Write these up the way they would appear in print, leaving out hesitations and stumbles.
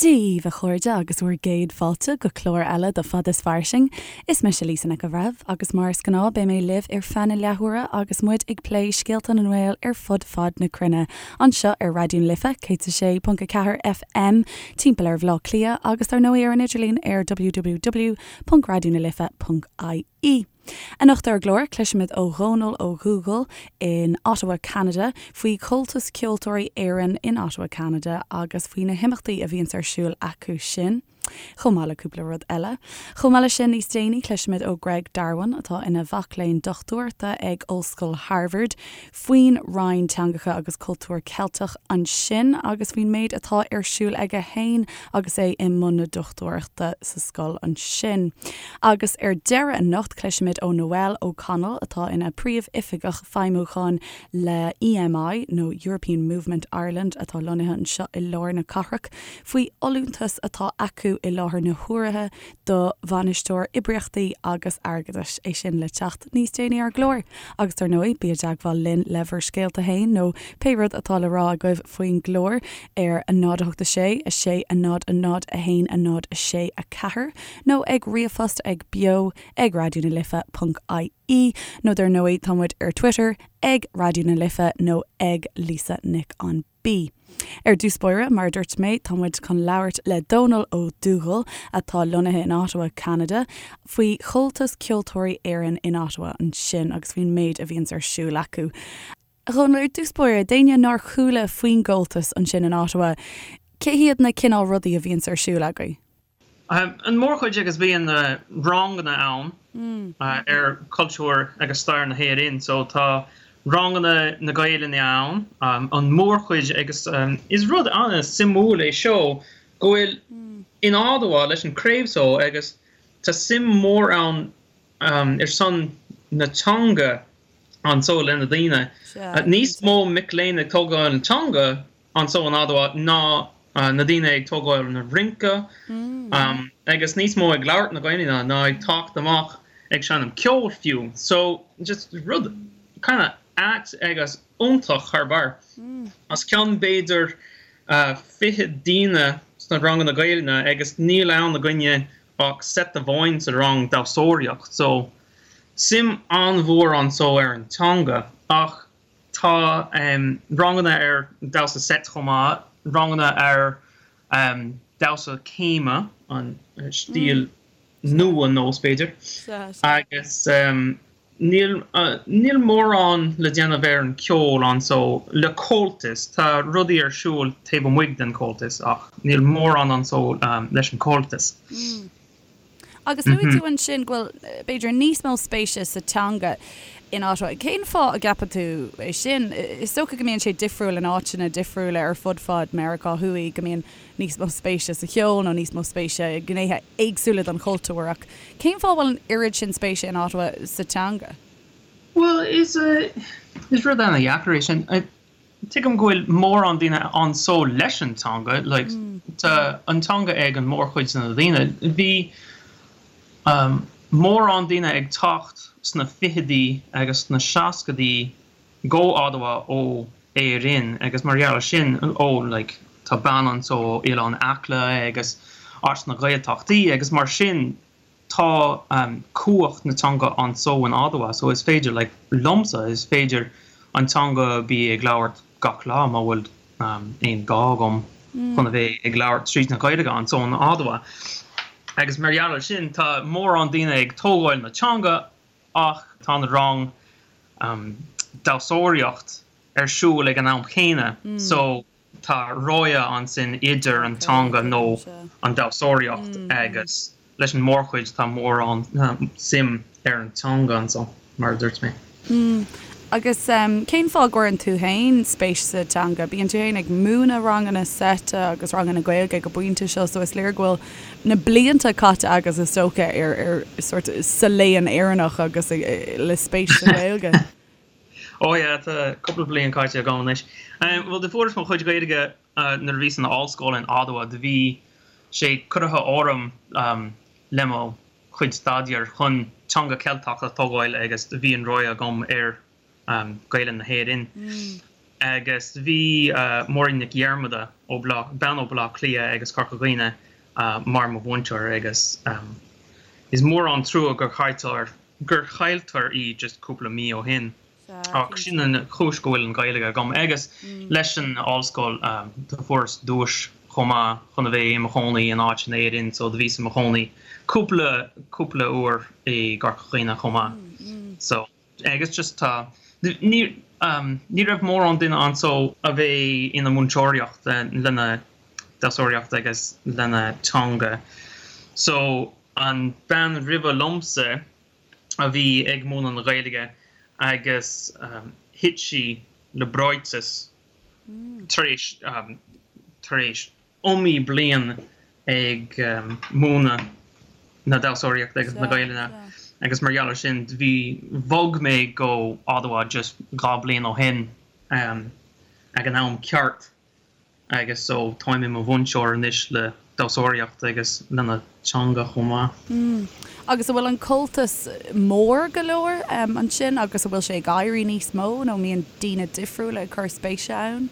Dia dhaoibh a chairde agus bhur gcéad fáilte go clár eile de Fad is Fairsing. Is mise Lisa Nic an Bhreithimh agus mar is gnáth beidh mé libh ar feadh na leathuaire agus muid ag plé scéalta na nGael ar fud fad na cruinne anseo ar Raidió na Life 106.4 FM timpeall ar Bhaile Átha Cliath agus dar ndóigh ar an idirlíon ar www.raidionalife.ie. Anocht ar an gclár, cloisfimid ó Dhónal Ó Dubhghaill in Ottawa, Ceanada, faoi Chomhaltas Ceoltóirí Éireann in Ottawa, Ceanada agus faoi na himeachtaí a bhíonns ar siúl acu sin, chomh maith le cúpla rud eile. Chomh maith leis sin, níos déanaí, cloisfimid ó Greg Darwin, atá ina mhac léinn dochtúireachta ag Ollscoil Harvard, faoin Roinn Teangacha agus Cultúr Ceilteach ansin agus faoin méid atá ar siúl aige féin agus é i mbun na dochtúireachta sa scoil ansin. Agus ar deireadh anocht cloisfimid ó Noelle O'Connell atá ina Príomh-Oifigeach Feidhmiúcháin le EMI nó European Movement Ireland atá lonnaithe anseo i lár na cathrach faoi fholúntas atá acu i láthair na huaire do Bhainisteoir Oibríochtaí agus Airgeadais, é sin le teacht níos déanaí ar an gclár. Agus dar ndóigh, bí i dteagmháil linn le bhur scéalta féin nó pé rud atá le rá agaibh faoin gclár ar 0 8 6 6 0 0 1 0 6 4 nó ag ríomhphost ag beo ag raidió na life ponc ie nó dar ndóigh tá muid ar Twitter ag Raidió na Life nó ag Lisa Nic an B. Ar dtús báire, mar a dúirt mé, tá muid chun labhairt le Dónal Ó Dubhghaill, atá lonnaithe in Ottawa, Ceanada, faoi Chomhaltas Ceoltóirí Éireann in Ottawa ansin agus faoin méid a bhíonns ar siúl acu. A Dhónaill, ar dtús báire, d'éinne nár chuala faoin gComhaltas ansin in Ottawa, cé hiad na cineál rudaí a bhíonns ar siúl agaibh? An mórchuid agus bíonn ranganna ann ar cultúr agus stair na hÉireann so tá ranganna na Gaelainne ann an mórchuid agus is rud an-suimiúil é seo go bhfuil in Ottawa leis an craobh so agus tá suim mór ann ar son na teanga anso le na daoine. Níos mó mic léinn ag tógáil an teanga anso in Ottawa ná na daoine ag tógáil na rince agus níos mó ag labhairt na Gaelainne ná ag teacht amach ag seinm ceoil fiú. So just rud kind of ait agus iontach thar barr. Os cionn b'fhéidir 20 daoine sna ranganna Gaelainne agus níl ann againne ach seit amháin sa rang damhsóireacht. So suim an-mhór anso ar an teanga ach Tá ranganna ar damhsa seit chomh maith, ranganna ar damhsa céime, an stíl nua nós b'fhéidir, agus níl níl mórán le déanamh ar an ceol anso le Comhaltas. Tá rudaí ar siúl taobh amuigh den Comhaltas ach níl mórán anso leis an Comhaltas. Agus luaigh tú ansin go bhfuil, b'fhéidir, níos mó spéise sa teanga in Ottawa. Cén fáth a gceapann tú é sin? Is dócha go mbíonn sé difriúil in áiteanna difriúla ar fud fad Meiriceá Thuaidh, go mbíonn níos mó spéise sa cheol nó níos mó spéise i ngnéithe éagsúla den chultúr. Ach cén fáth a bhfuil an oiread sin spéise in Ottawa sa teanga? Bhuel, is rud ana-dheacair é sin. Tuigim go bhfuil mórán daoine anso leis an teanga, like, tá an teanga ag an mórchuid de na daoine. Bhí mórán daoine ag teacht sna fichidí agus sna seascaidí go Ottawa ó Éirinn agus mar gheall ar sin, ó, like, tá bean anso ó Oileán Acla agus as na Gaeltachtaí agus mar sin, Tá cumhacht na teanga anso in Ottawa so is féidir, like, liomsa, is féidir an teanga bí ag labhairt gach lá má bhfuil aon gá agam chun a bheith ag labhairt tríd na Gaeilge anso in Ottawa. Agus mar gheall ar sin tá mórán daoine ag tógáil na teanga ach tá an rang damhsóireacht ar siúl ag an am chéanna so Tá rogha ansin idir an teanga nó an damhsóireacht agus leis an mórchuid tá mórán suim ar an teanga anso, mar a dúirt mé. Agus cén fáth a gcuireann tú féin spéis sa teanga? Bíonn tú féin ag múineadh ranganna seite agus ranganna Gaeilge ag an bpointe seo so is léir go bhfuil na blianta caite agat is dócha ar ar sort sa léann Éireannach agus le spéis sa Ghaeilge. Ó yeah, tá cúpla bliain caite agam anois. Bhuel, do fuaireas mo chuid Gaeilge nuair a bhíos in ollscoil in Ottawa. Do bhí sé curtha orm le mo chuid staidéir chun teanga Ceilteach a tógáil agus do bhí an rogha agam ar Gaelainn na hÉireann. Agus bhí Máirín Nic Dhiarmada ó Bhleá, bean ó Bhleá Cliath agus Corca Dhuibhne mar mo mhúinteoir agus is mór an trua gur chailltear, gur chailltear í just cúpla mí ó shin. Ach sin an chúis go bhfuil an Ghaeilge agam agus leis an ollscoil do fuaireas duais chomh maith chun a bheith i mo chónaí in áit in Éirinn so do bhíos i mo chónaí cúpla cúpla uair i gCorca Dhuibhne chomh maith. So agus just tá ní ní raibh mórán duine anso a bheith ina múinteoireacht lena damhsóireacht agus lena teanga. So an bean roimhe liomsa a bhí ag múineadh na Gaeilge agus thit sí le breoiteas tar éis tar éis iomaí bliain ag múineadh na damhsóireachta agus na Gaelainne agus mar gheall ar sin bhí bhog mé go Ottawa just 2 bliain ó shin ag an am ceart. Agus so táim i mo mhúinteoir anois le damhsóireacht agus lena teanga chomh maith. Agus an bhfuil an Comhaltas mór go leor ansin agus an bhfuil sé ag éirí níos mó nó an mbíonn daoine difriúla ag cur spéise ann?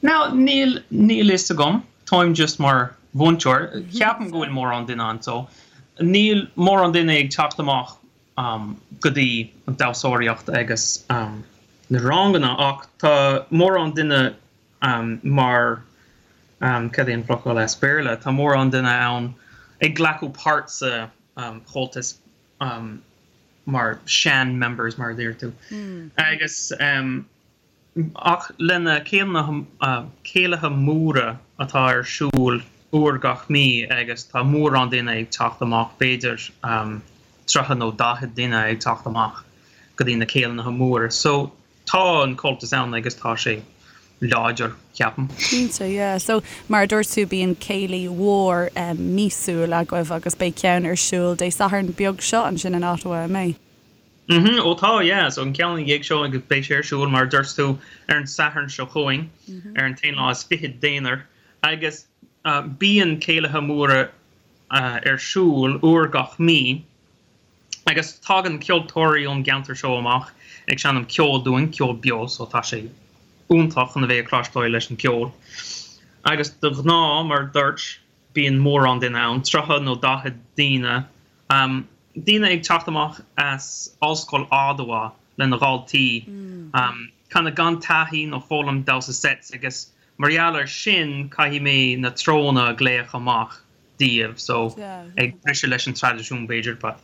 Now níl, níl fhios agam. Táim just mar mhúinteoir. Ceapaim go bhfuil mórán duine anso. Níl mórán duine ag teacht amach go dtí an damhsóireacht agus na ranganna ach tá mórán duine mar, cad é an focal as Béarla, tá mórán duine ann ag glacadh páirt sa Chomhaltas mar sean members mar a deir tú. Agus. Ach lena céilithe móra atá ar siúl uair gach mí agus tá mórán duine ag teacht amach, b'fhéidir 30 nó 40 duine ag teacht amach go dtí na céilithe móra. So tá an Comhaltas ann agus tá sé láidir, ceapaim. Cinnte, yeah. So mar a dúirt tú bíonn céilí mhór míosúil agaibh agus beidh ceann ar siúl Dé Sathairn beag seo ansin in Ottawa, an mbeidh? Mhm, ó tá, yeah, so an ceann ina dhiaidh seo agus beidh sé ar siúl, mar a dúirt tú, ar an Satharn seo chugainn, ar an t-aon lá is fichead d'Eanáir, agus bíonn céilithe móra ar siúl uair gach mí, agus tagann ceoltóirí ón gceantar seo amach ag seinm ceoil dúinn, ceol beo, so tá sé iontach chun a bheith ag cloisteáil leis an gceol. Agus de ghnáth, mar a dúirt, bíonn mórán duine ann, 30 nó 40 daoine, daoine ag teacht amach as Ollscoil Ottawa lena dhaltaí, kind of gan taithí nó foghlaim damhsa sets agus mar gheall ar sin caithfidh mé na treonna a ghlaoch amach daoibh, so ag briseadh leis an traidisiún b'fhéidir but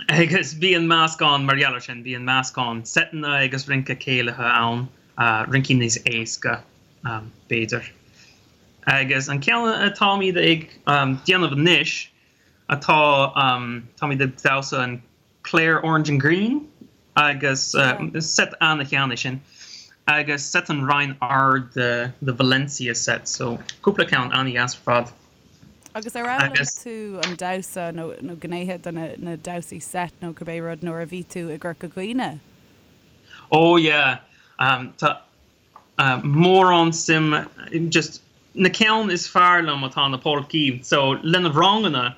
agus bíonn meascán mar gheall ar sin, bíonn meascán seiteanna agus rince céilithe ann, rincí níos éasca b'fhéidir. Agus an ceann atáimid ag déanamh anois atá, táimid ag damhsa an Clare Orange and Green agus seit ana-shean é sin agus seit an Rinn Ard the Valencia set so cúpla ceann ana-dheas ar fad. Agus ar fhoghlaim tú an damhsa nó nó gnéithe de na damhsaí seit nó cibé rud nuair a bhí tú i gCorca Dhuibhne? Oh yeah, tá mórán suim just na ceann is fearr liom atá na polcaí so lena ranganna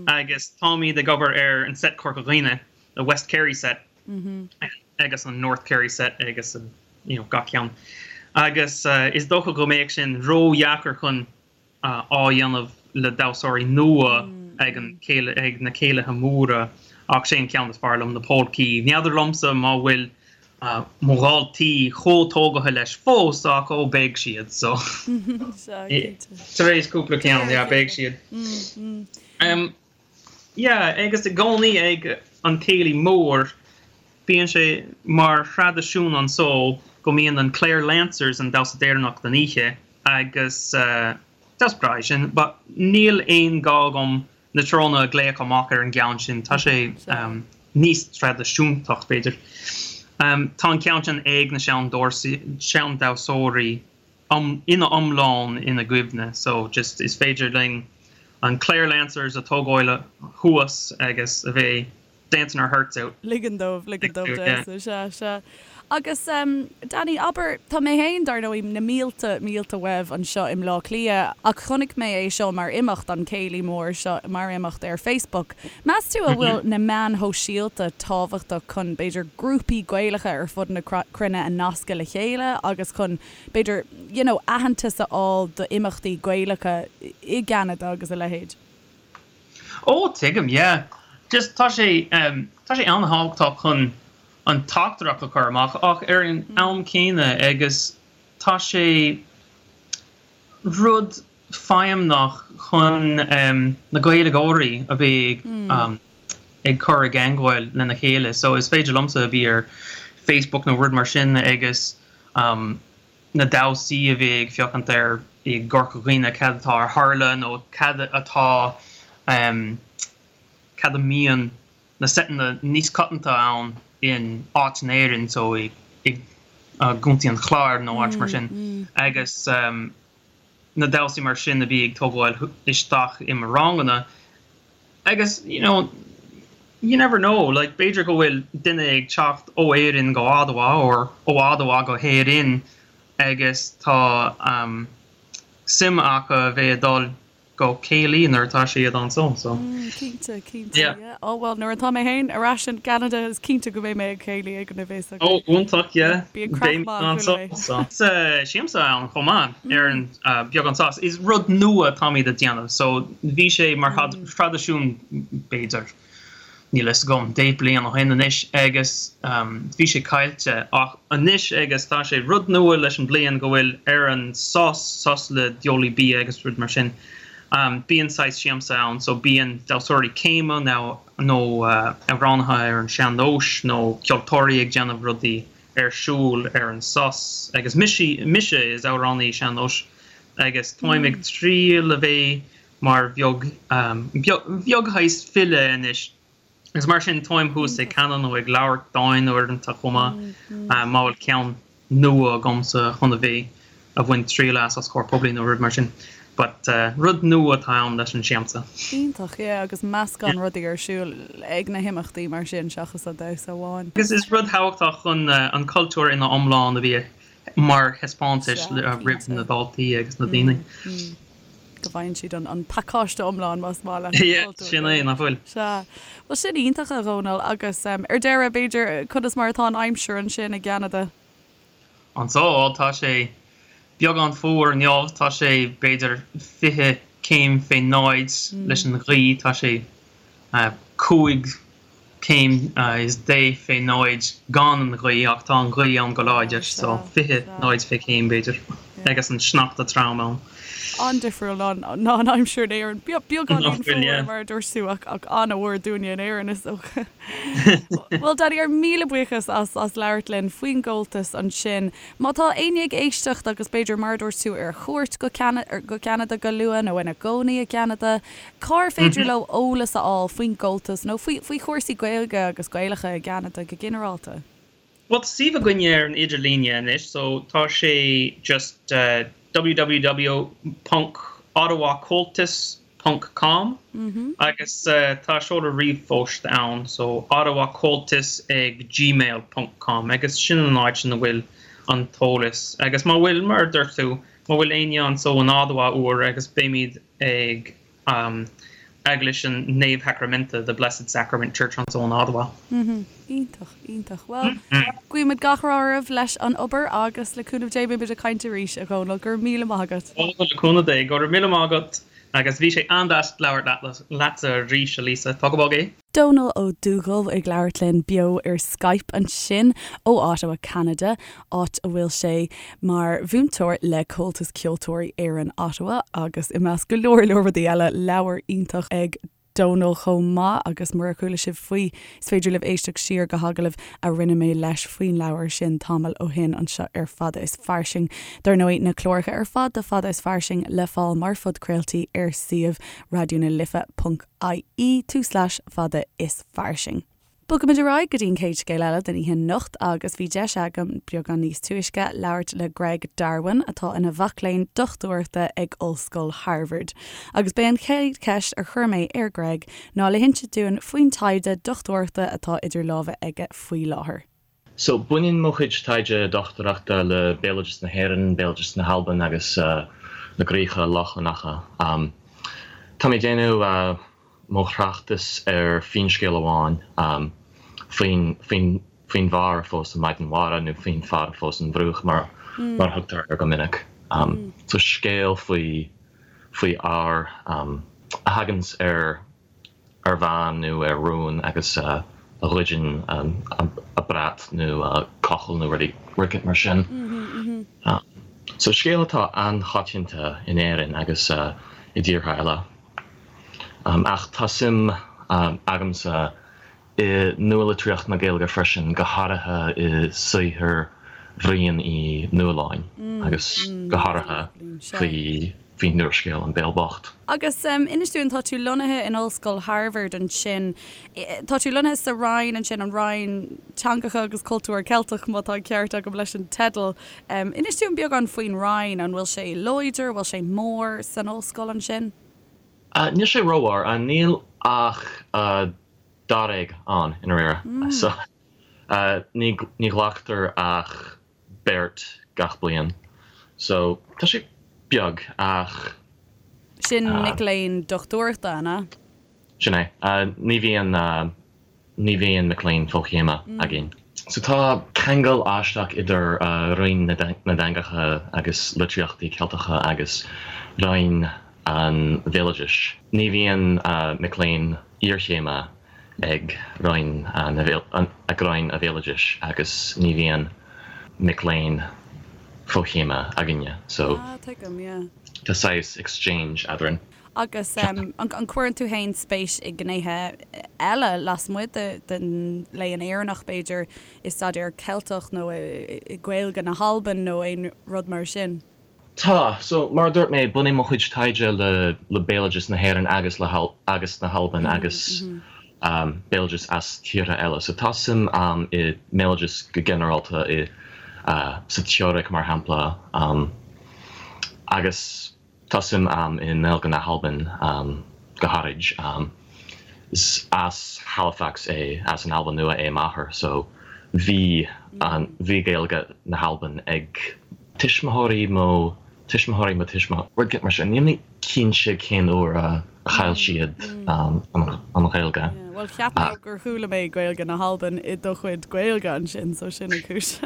agus táimid ag obair ar an set Corca Dhuibhne, the West Kerry set agus an North Kerry set agus an you know gach ceann agus is dócha go mbeadh sin ródheacair chun á dhéanamh le damhsóirí nua ag an ag na céilithe móra ach sé an ceann is fearr liom, na polcaí. N'fheadar liomsa má bhfuil mo dhaltaí chomh tógaithe leis fós ach ó beidh siad so tar éis cúpla ceann yeah beidh siad. Yeah agus i gcónaí ag an céilí mór bíonn sé mar thraidisiún anso go mbíonn an Clare Lancers an damhsa deireanach den oíche agus damhsa breá é sin but níl aon gá agam na treonna a ghlaoch amach ar an gceann sin, tá sé níos traidisiúntach b'fhéidir. Tá an ceann sin ag na sean-damhsóirí ina iomlán ina gcuimhne so just is féidir linn an Clare Lancers a tógáil thuas agus a bheith dancing our hearts out. Ligean dóibh, ligean dóibh damhsa, sea, sea. Agus Danny, abair, tá mé féin, dar ndóigh, na mílte, mílte uaibh anseo i mBleá Cliath ach chonaic mé é seo mar imeacht, an céilí mór seo mar imeacht ar Facebook. Meas tú an bhfuil na meáin shóisialta tábhachtach chun, b'fhéidir, grúpaí Gaelacha ar fud na cruinne a nascadh le chéile agus chun, b'fhéidir, you know, aitheantas a fháil d'imeachtaí Gaelacha i gCeanada agus a leithéid? Ó, tuigim, yeah. Just tá sé, tá sé an-thábhachtach chun an teachtaireacht a chur amach ach ar an am céanna agus tá sé rud feidhmeach chun na Gaeilgeoirí a bheith ag cur i gceangal lena chéile. So is féidir liomsa a bheith ar Facebook nó rud mar sin agus na damhsaí a bheith ag féachaint ar i gCorca Dhuibhne cad atá ar tharla nó cad atá cad a mbíonn na seiteanna níos coitianta ann in áit in Éirinn so i gContae an Chláir nó áit mar sin agus na damhsaí mar sin a bhí ag tógáil isteach i mo ranganna agus you know you never know like b'fhéidir go bhfuil duine ag teacht ó Éirinn go Ottawa or ó Ottawa go hÉirinn agus tá suim acu a bheith ag dul go céilí nuair atá siad anso so. Cinnte, cinnte, yeah. Ó bhuel nuair atá mé féin ar ais in gCeanada is cinnte go mbeidh mé ag céilí ag an bhfios acu. Ó iontach, yeah. Bíonn craic maith anso so. Siamsa ann chomh maith ar an beagán sos. Is rud nua atáimid a déanamh so bhí sé mar thraidisiún b'fhéidir. níl a fhios agam, 10 bliain ó shin anois agus bhí sé caillte ach anois agus tá sé rud nua leis an bliain go bhfuil ar an sos, sos le diabhlaí bia agus rud mar sin, bíonn saghas siamsa ann so bíonn damhsóirí céime nó nó amhránaithe ar an sean-nós nó ceoltóirí ag déanamh rudaí ar siúl ar an sos agus mise, mise is amhránaí sean-nóis agus táim ag triail a bheith mar bheag, beag shaghas file anois agus mar sin táim thuas ag canadh nó ag labhairt dáin uaireanta chomh maith má bhfuil ceann nua agamsa chun a bheith a bhain triail as os comhair poiblí nó rud mar sin. But rud nua atá ann leis an siamsa. Iontach, yeah, agus meascán rudaí ar siúl ag na himeachtaí mar sin seachas an damhsa amháin. Agus is rud thábhachtach chun an cultúr ina iomlán a bheith mar thaispeántais roimh na daltaí agus na daoine. go bhfaigheann siad an pacáiste iomlán más maith leat. Yeah, sin é, nach bhfuil? Sea. Bhuel, sin iontach, a Dhónaill, agus ar deireadh, b'fhéidir, conas mar atá an aimsir ansin i gCeanada? Anso, tá sé beagán fuar inniu, tá sé b'fhéidir 20 céim fé náid leis an ghaoth, tá sé 5 céim is 10 fé náid gan an ghaoth ach tá an ghaoth ann go láidir so 20 náid fé chéim b'fhéidir agus an sneachta trom ann. An-difriúil ná an aimsir in Éirinn. Beagáinín fuar mar a dúirt tú ach an-fhuar dúinne in Éirinn is dócha. Bhuel Danny ár míle buíochas as as labhairt linn faoin gComhaltas ansin. Má tá éinne ag éisteacht agus b'fhéidir mar a dúirt tú ar chuairt go go Ceanada go luath nó ina gcónaí i gCeanada, Cár féidir leo eolas a fháil faoin gComhaltas nó faoi faoi chúrsaí Gaeilge agus Gaelacha i gCeanada go ginearálta? Bhuel, tá suíomh againne ar an idirlíne anois, so tá sé just www ponc ottawacomhaltas ponc com agus tá seoladh ríomhphost ann, so ottawacomhaltas ag gmail ponc com agus sin an áit ina bhfuil an t-eolas. Agus má bhfuil, mar a dúirt tú, má bhfuil éinne anso in Ottawa uair agus beimid ag Eaglais an Naomh-Shacraiminte, The Blessed Sacrament Church anso in Ottawa. Iontach, iontach. Bhuel, guímid gach rath oraibh leis an obair agus le cúnamh Dé beimid ag caint arís, a Dhónaill. Go raibh míle maith agat. Ó, le cúnamh Dé. Go raibh míle maith agat agus bhí sé an-deas labhairt leatsa arís, a Lisa. Tóg go bog é. Dónall Ó Dubhghaill ag labhairt linn beo ar Skype ansin ó Ottawa, Ceanada, áit a bhfuil sé mar mhúinteoir le Comhaltas Ceoltóirí Éireann Ottawa agus i measc go leor leor rudaí eile, leabhar iontach ag Dónall chomh maith agus murar chuala sibh faoi, is féidir libh éisteacht siar go hagallamh a rinne mé leis faoin leabhar sin tamall ó shin anseo ar Fada is Fairsing. Dar ndóigh, na cláracha ar fad de Fada is Fairsing le fáil mar phodchraoltaí ar suíomh Raidió na Life. ie tulslais fada is fairsing. Bogaimid ar aghaidh go dtí an chéad scéal eile den oíche anocht agus bhí deis agam beagán níos túisce labhairt le Greg Darwin atá ina mhac léinn dochtúireachta ag Ollscoil Harvard. Agus b'é an chéad cheist a chuir mé ar Greg ná le hinse dúinn faoin taighde dochtúireachta atá idir lámha aige faoi láthair. So, baineann mo chuid taighde dochtúireachta le béaloideas na hÉireann, béaloideas na hAlban agus na gCríocha Lochlannacha. Tá mé ag déanamh mo thráchtas ar finscéal amháin faoin faoin bhfear a phós an Mhaighdean Mhara nó faoin fear a phós an Bhruach mar mar a thugtar air go minic. So scéal faoi faoi fhear a thaganns ar ar bhean nó ar rún agus a ghoideann a brat nó a cochall nó rud éicint mar sin. So scéal atá an-choitianta in Éirinn agus i dtíortha eile. Ach tá suim agamsa i nualitríocht na Gaeilge freisin, go háirithe i saothar Bhriain Uí Nualláin agus go háirithe faoi faoin úrscéal An Béal Bocht. Agus inis dúinn, tá tú lonnaithe in Ollscoil Harvard ansin. Tá tú lonnaithe sa Roinn ansin, an Roinn Teangacha agus Cultúr Ceilteach, má tá an ceart agam leis an teideal. Inis dúinn beagán faoin Roinn, an bhfuil sé láidir, an bhfuil sé mór san ollscoil ansin? Níl sé rómhór, níl ach dáréag ann i ndáiríre. So ní ghlactar ach beirt gach bliain. So tá sé beag ach. Sin mic léinn dochtúireachta, an ea? Sin é. Ní bhíonn ní bhíonn mic léinn fochéime againn. So tá ceangal aisteach idir Roinn na dTeangacha agus Litríochtaí Ceilteacha agus Roinn an Bhéaloidis. Ní bhíonn mic léinn iarchéime ag Roinn ag Roinn an Bhéaloidis agus ní bhíonn mic léinn fochéime againne. So Ah, tuigim, yeah. tá saghas exchange eadrainn. Agus an gcuireann tú féin spéis i ngnéithe eile lasmuigh den Léann Éireannach, b'fhéidir, i staidéar Ceilteach nó i Gaeilge na hAlban nó aon rud mar sin? Tá. So, mar a dúirt mé, baineann mo chuid taighde le le béaloideas na hÉireann agus le agus na hAlban agus béaloideas as tíortha eile. So tá suim a'm i mbéaloideas go ginearálta, i sa teoiric mar shampla, agus Tá suim a'm i nGaeilge na hAlban go háirid. Is as Halifax é, as an Albain Nua é m'athair so bhí an, bhí Gaeilge na hAlban ag tuismitheoirí mo, tuismitheoirí mo tuismitheoirí, rud mar sin. Níl mé cinnte cén uair a chaill siad an Ghaeilge. Bhuel cheap mé gur chuala mé Gaeilge na hAlban i do chuid Gaeilge ansin so sin an chúis.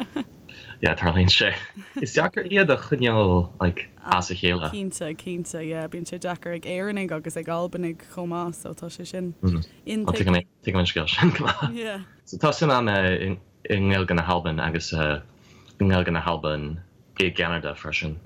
Yeah, tarlaíonn sé. Is deacair iad a choinneáil like as a chéile. Cinnte, cinnte, yeah. Bíonn sé deacair ag Éireannaigh agus ag Albanaigh chomh maith, so tá sé sin intuigthe. Tuigim, tuigim an scéal sin go maith. Yeah. So tá suim agam i nGaeilge na hAlban agus i nGaeilge na hAlban i gCeanada freisin,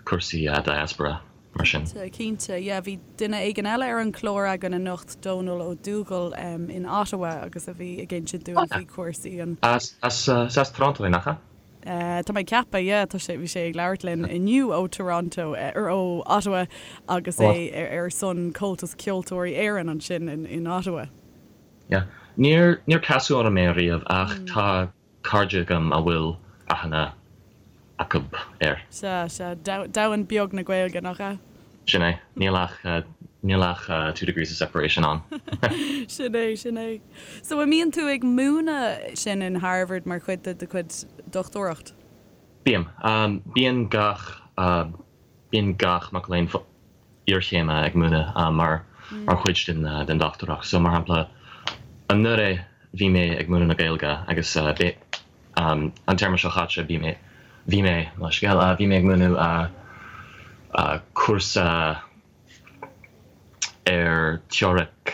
cúrsaí diaspora. mar sin. Cinnte, cinnte. Yeah, bhí duine éigin eile ar an chlár againn anocht, Dónal Ó Dúghaill in Ottawa agus a bhí ag insint dúinn faoi chúrsaí an. As, as, as Toronto é, nach ea? Tá mé ag ceapadh, yeah, tá sé, bhí sé ag labhairt linn inniu ó Toronto, or ó Ottawa agus é ar son Comhaltas Ceoltóirí Éireann ansin in Ottawa. Yeah. Níor, níor casadh orm é riamh ach tá cairde agam a bhfuil aithne acu air. Sea, sea. Domhan beag na Gaeilge, nach ea? Sin é. Níl ach, níl ach two degrees of separation ann. Sin é, sin é. So, an mbíonn tú ag múineadh sin in Harvard mar chuid de do chuid dochtúireacht? Bím. Bíonn gach, bíonn gach mac léinn iarchéime ag múineadh mar mar chuid den den dochtúireacht. So mar shampla anuraidh bhí mé ag múineadh na Gaeilge agus an téarma seo chaite bhí mé bhí mé mo scéal bhí mé ag múineadh cúrsa ar teoiric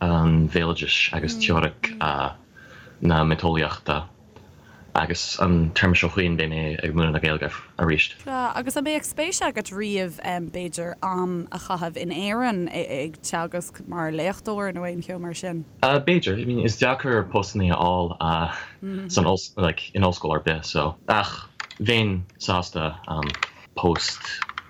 an bhéaloidis agus teoiric na miotaseolaíochta. Agus an téarma seo chugainn beidh mé ag múineadh na Gaeilge arís. Sea, agus an mbeadh spéis agat riamh, b'fhéidir, am a chaitheamh in Éirinn ag teagasc mar léachtóir nó aon cheo mar sin? B'fhéidir. I mean, is deacair postanna a fháil san oll, like, in ollscoil ar bith, so. Ach bheinn sásta post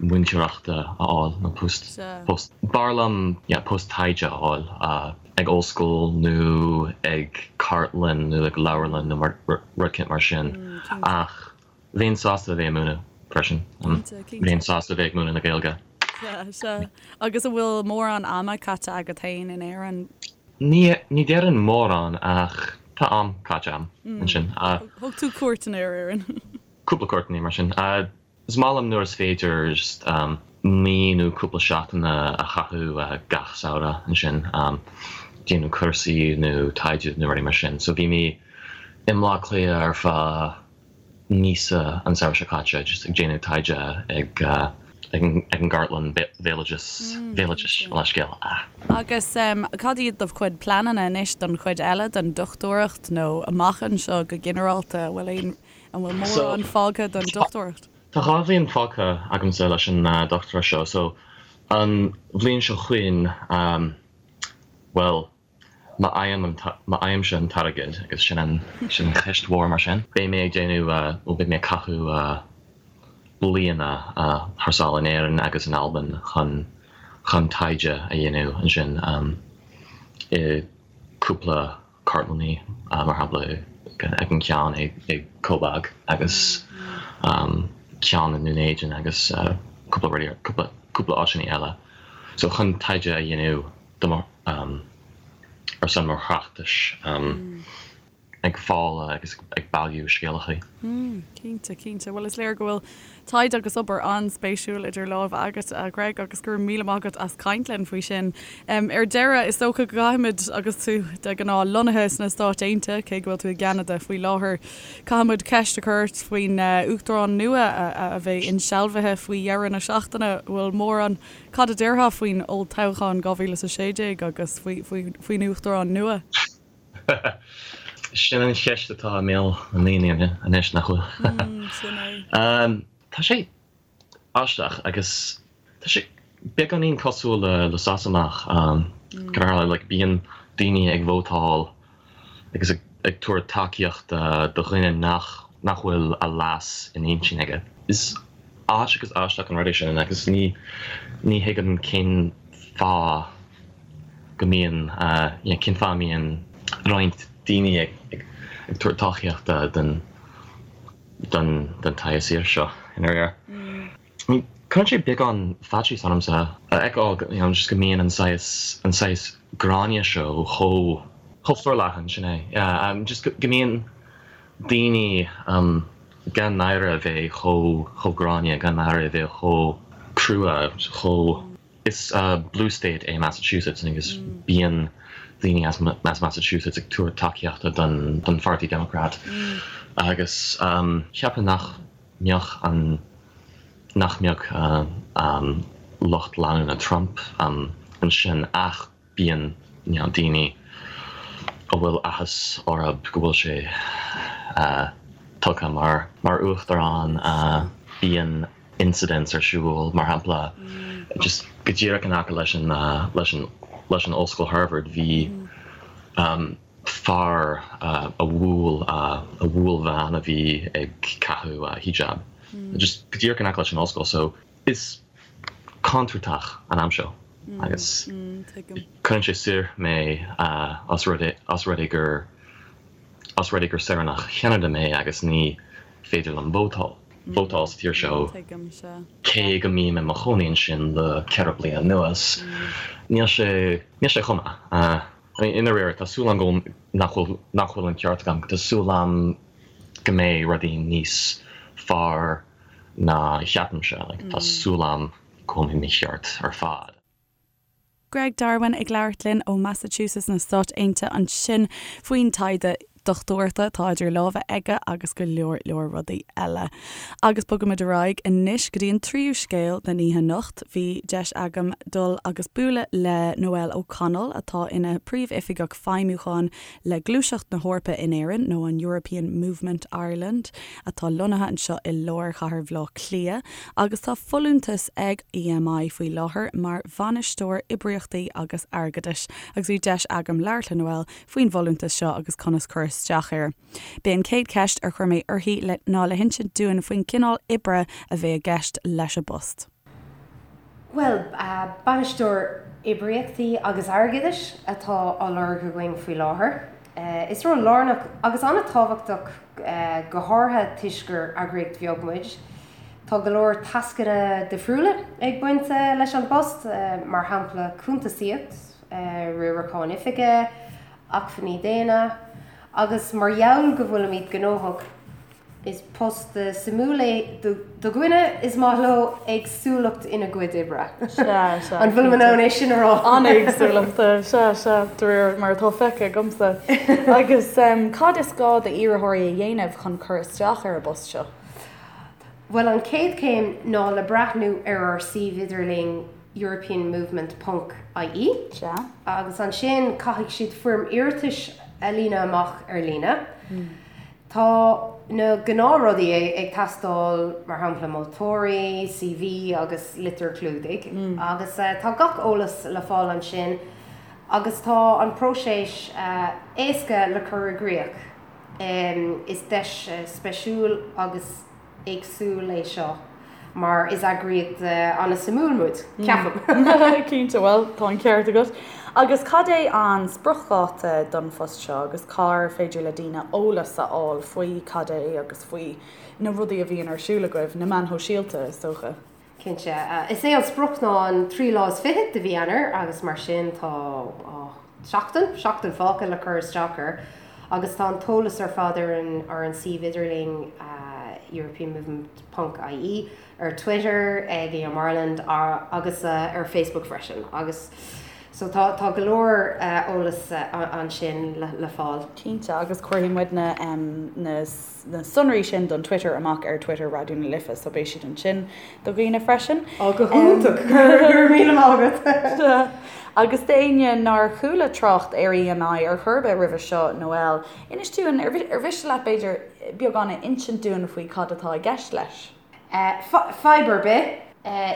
múinteoireachta a fháil nó post, post, b'fhearr liom, yeah, post taighde a fháil. ag ollscoil nó ag cartlann nó ag leabharlann nó rud éicint mar sin ach bheinn sásta a bheith ag múineadh freisin. Bheinn sásta a bheith ag múineadh na Gaeilge. Sea, sea. Agus an bhfuil mórán ama caite agat féin in Éirinn? Ní, ní déarfainn mórán ach. Tá am caite agam ansin. Thug tú cuairteanna ar Éirinn. Cúpla cuairteanna mar sin. Is maith liom nuair is féidir just mí nó cúpla seachtain a chaitheamh gach samhradh ansin, déanamh cúrsaí nó taighde nó rudaí mar sin. So bhí mé i mBleá Cliath ar feadh míosa an samhradh seo caite just ag déanamh taighde ag ag an gCartlann Bhéaloidis, Bhéaloidis, leithscéal. Agus cad iad do chuid pleananna anois don chuid eile den dochtúireacht nó amach anseo go ginearálta? An bhfuil aon, an bhfuil mórán fágtha don dochtúireacht? Tá 2 bhliain fágtha agamsa leis an dochtúireacht seo so an bhliain seo chugainn, bhuel, Má fhaighimse an t-airgead, agus sin an sin an cheist mhór mar sin, beidh mé ag déanamh nó beidh mé ag caitheamh bliana thar sáile in Éirinn agus in Albain chun chun taighde a dhéanamh ansin i cúpla cartlannaí, mar shampla ag an ceann i Cobác agus ceann i nDún Éideann agus cúpla rudaí cúpla cúpla áiteanna eile. So chun taighde a dhéanamh do mo ar son mo thráchtais ag fáil agus ag bailiú scéalachaí. Cinnte, cinnte. Bhuel, is léir go bhfuil taighde agus obair an-spéisiúil idir lámha agat, a Ghreg, agus go raibh míle maith agat as caint linn faoi sin. Ar deireadh, is dócha go gcaithfimid, agus tú de ghnáth lonnaithe sna Stáit Aontaithe, cé go bhfuil tú i gCeanada faoi láthair, caithfimid ceist a chur ort faoin Uachtarán nua a bheidh insealbhaithe faoi dheireadh na seachtaine. Bhfuil mórán Cad a déarfá faoin olltoghchán 2016 agus faoin Uachtarán nua? Sin an cheist atá i mbéal na ndaoine anois, nach bhfuil? Sin é. Tá sé aisteach agus tá sé beagáinín cosúil le Sasanach. Go háirithe, like, bíonn daoine ag vótáil agus ag tabhairt tacaíochta do dhuine nach nach bhfuil a leas in intinn aige. Is ait agus aisteach an rud é sin agus ní ní thuigim cén fáth go mbíonn you know cén fáth a mbíonn roinnt daoine ag ag ag tabhairt tacaíochta don don don tsaghas fhir seo i ndáiríre. I mean cuireann sé beagán faitíos ormsa a fheiceáil you know just go mbíonn an saghas an saghas gráinne seo chomh chomh forleathan sin é yeah um just go go mbíonn daoine um gan náire a bheith chomh chomh gránna gan náire a bheith chomh crua chomh Is blue state é Massachusetts agus bíonn daoine as as Massachusetts ag tabhairt tacaíochta don don pháirtí Democrat agus cheapfainn nach mbeadh an nach mbeadh lucht leanúna Trump ansin ach bíonn you know daoine a bhfuil áthas orthu go bhfuil sé tugtha mar mar uachtarán bíonn incidents ar siúl mar shampla just go díreach in aice leis an leis an leis an ollscoil Harvard bhí fear a bhuail a bhuail bean a bhí ag caitheamh hijab just go díreach in aice leis an ollscoil so is contúirteach an am seo agus cuireann sé soir mé os rud é os rud é gur os rud é gur saoránach Cheanada mé agus ní féidir liom vótáil vótáil sa tír seo cé go mbím i mo chónaí ansin le 4 bliana anuas níl sé níl sé chomh maith. I mean i ndáiríre tá súil agam go nach bhfuil nach bhfuil an ceart agam tá súil agam go mbeidh rudaí níos fearr ná a cheapaimse. Like tá súil agam go bhfuil mé mícheart ar fad. Greg Darwin ag labhairt linn ó Massachusetts na Stáit Aontaithe ansin faoin taighde dochtúireachta atá idir lámha aige agus go leor leor rudaí eile. Agus bogaimid ar aghaidh anois go dtí an tríú scéal den oíche anocht. Bhí deis agam dul agus bualadh le Noelle O'Connell atá ina Príomh-Oifigeach Feidhmiúcháin le Gluaiseacht na hEorpa in Éirinn, nó an European Movement Ireland, atá lonnaithe anseo i lár chathair Bhaile Átha Cliath, agus tá folúntas ag EMI faoi láthair mar Bhainisteoir Oibríochtaí agus Airgeadais, agus bhí deis agam labhairt le Noelle faoin bhfolúntas seo agus conas cur isteach air. B'é an chéad cheist ar chuir mé uirthi ná le hinsint dúinn faoin gcineál oibre a bheidh i gceist leis an bpost. Bhuel, Bainisteoir Oibríochtaí agus Airgeadais atá á lorg againn faoi láthair. Is ról lárnach agus an-tábhachtach, go háirithe toisc gur eagraíocht bheag muid. Tá go leor tascanna difriúla ag baint leis an bpost, mar shampla cuntasaíocht, riarachán oifige, acmhainní daonna. Agus mar gheall go bhfuilimid gnóthach, is post suimiúil é do dhuine is maith leo éagsúlacht ina gcuid oibre. Sea, sea. An bhfuilim in ann é sin a rá? An-éagsúlacht, sea, sea, de réir mar atá feicthe agamsa. Agus cad is gá d'iarrthóirí a dhéanamh chun cur isteach ar an bpost seo? Bhuel, an chéad chéim ná le breathnú ar ár suíomh idirlín europeanmovement ponc ie. Sea. Agus ansin caithfidh siad foirm iarratais a líonadh amach ar líne. Tá na gnáthrudaí ag teastáil, mar shampla moltóirí, CV agus litir chlúdaigh. Agus tá gach eolas le fáil ansin agus tá an próiseas éasca le cur i gcrích. Is deis speisiúil agus éagsúil é seo mar is eagraíocht an-suimiúil muid, ceapaim. Cinnte, bhuel, tá an ceart agat. Agus cad é an spriocdháta don phost seo agus cár féidir le daoine eolas a fháil faoi cad é agus faoi na rudaí a bhíonn ar siúl agaibh, na meáin shóisialta, is dócha? Cinnte. Is é an sprioc ná an 23 lá de mhí Eanáir agus mar sin tá seachtain, seachtain fágtha le cur isteach air agus tá an t-eolas ar fad ar an ar an suíomh idirlín europeanmovement ponc ie, ar Twitter ag EM Ireland agus ar Facebook freisin agus so tá tá go leor eolas ansin le fáil. Cinnte agus cuirfidh muid na na na sonraí sin don Twitter amach ar Twitter Raidió na Life so beidh siad ansin do dhaoine freisin. Ó go hiontach! Go raibh míle maith agat! Agus d'éinne nár chuala trácht ar EMI ar chor ar bith roimhe seo, Noel, inis dúinn, ar mhiste leat b'fhéidir beagán a insint dúinn faoi cad atá i gceist leis? Fadhb ar bith.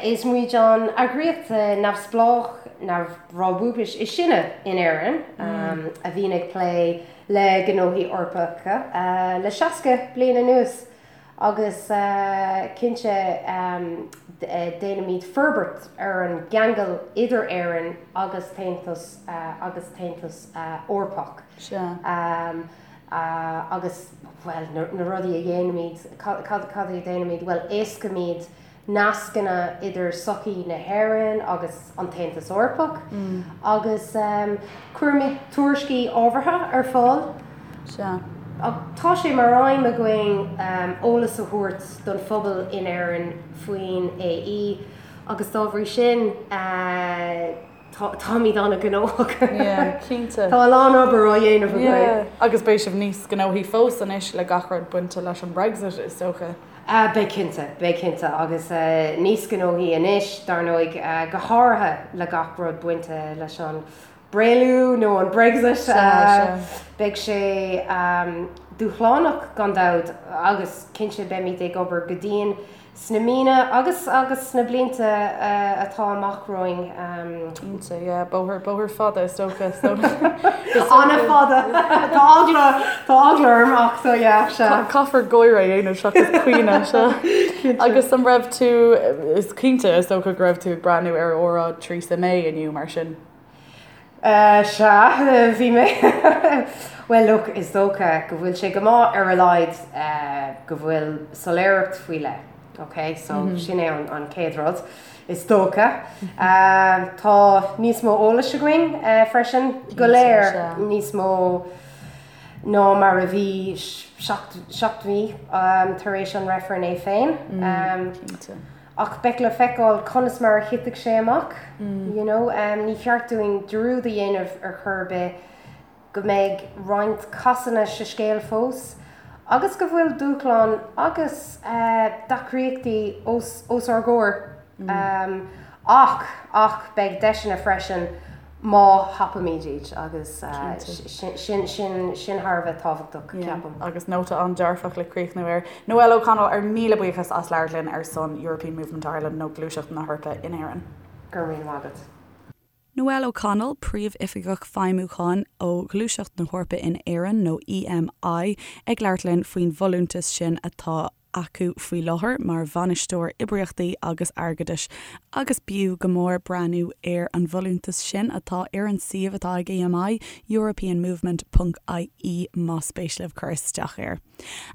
Is muid an eagraíocht neamhspleách neamhbhrabúis is sine in Éirinn a bhíonn ag plé le gnóthaí Eorpacha le 60 bliain anuas agus cinnte déanaimid forbairt ar an gceangal idir Éirinn agus tAontas agus tAontas Eorpach. Agus, bhuel, na rudaí a dhéanaimid, cad a dhéanaimid? Bhuel, éascaímid nascanna idir sochaí na hÉireann agus an tAontas Eorpach agus cuirimid tuairiscí ábhartha ar fáil. Sea. Tá sé mar aidhm againn eolas a thabhairt don phobal in Éirinn faoin AE agus dá bhrí sin, Táimid an-ghnóthach. Yeah, cinnte. Tá a lán obair á dhéanamh againn. Yeah, agus beidh sibh níos gnóthaí fós anois le gach rud bainte leis an Brexit, is dócha. Beidh cinnte, beidh cinnte. Agus níos gnóthaí anois, dar ndóigh, go háirithe le gach rud bainte leis an bréalú nó an Brexit. Sea, sea. Beidh sé dúshlánach gan dabht agus cinnte beimid ag obair go dian Sna míonna agus agus sna blianta atá amach romhainn. Cinnte, yeah. Bóthar, bóthar fada is dócha. So, An-fhada. Tá eagla, tá eagla orm ach so yeah, sea. Caithfear gáire a dhéanamh seachas caoineadh, sea. Cinnte. Agus an raibh tú, is cinnte is dócha go raibh tú ag breathnú ar óráid Theresa May inniu mar sin? Sea, bhí mé. Bhuel, look, is dócha go bhfuil sé go maith ar a laghad go bhfuil soiléireacht faoi leith, ok? So, sin é an chéad rud, is dócha. Tá níos mó eolais againn freisin, go léir níos mó ná mar a bhí seacht mí tar éis an reifreann é féin. Cinnte. Ach beidh le feiceáil conas mar a thitfidh sé amach, you know. Ní cheart dúinn dearúd a dhéanamh ar chor ar bith go mbeidh roinnt casanna sa scéal fós agus go bhfuil dúshláin agus deacrachtaí os os ár gcomhair. Ach, ach beidh deiseanna freisin. má thapaímid iad agus sin sin sin thar a bheith tábhachtach, ceapaim. Agus nóta an-dearfach le críochnú air. Noelle O'Connell, ár míle buíochas as labhairt linn ar son European Movement Ireland nó Gluaiseacht na hEorpa in Éirinn. Go raibh míle maith agat. Noelle O'Connell, Príomhoifigeach Feidhmiúcháin ó Ghluaiseacht na hEorpa in Éirinn nó EMI, ag labhairt linn faoin bhfolúntas sin atá. acu faoi láthair mar Bhainisteoir Oibríochtaí agus Airgeadais agus b'fhiú go mór breathnú ar an bhfolúntas sin atá ar an suíomh atá ag EMI, europeanmovement ponc ie más spéis libh cur isteach air.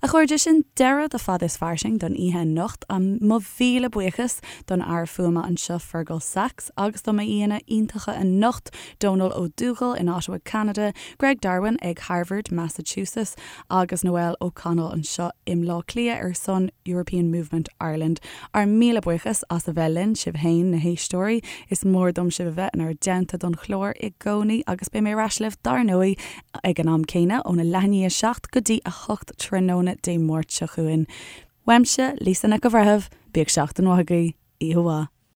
A chairde, sin deireadh do Fada is Fairsing don oíche anocht. Mo mhíle buíochas don fhear fuaime anseo Fergal Sachs agus do m'aíonna iontacha anocht, Dónal Ó Dúghaill in Ottawa, Ceanada, Greg Darwin ag Harvard, Massachusetts, agus Noel O'Connell anseo i mBleá Cliath ar son European Movement Ireland. Ár míle buíochas as a bheith linn, sibh féin, na héisteoirí. Is mór dom sibh a bheith inár dteannta don chlár i gcónaí agus beidh mé ar ais libh dar ndóigh ag an am céanna óna leath i ndiaidh 7 go dtí 8 tráthnóna Dé Máirt seo chugainn. Uaimse, Lisa Nic an Bhreithimh, bíodh seachtain mhaith agaibh. Oíche mhaith.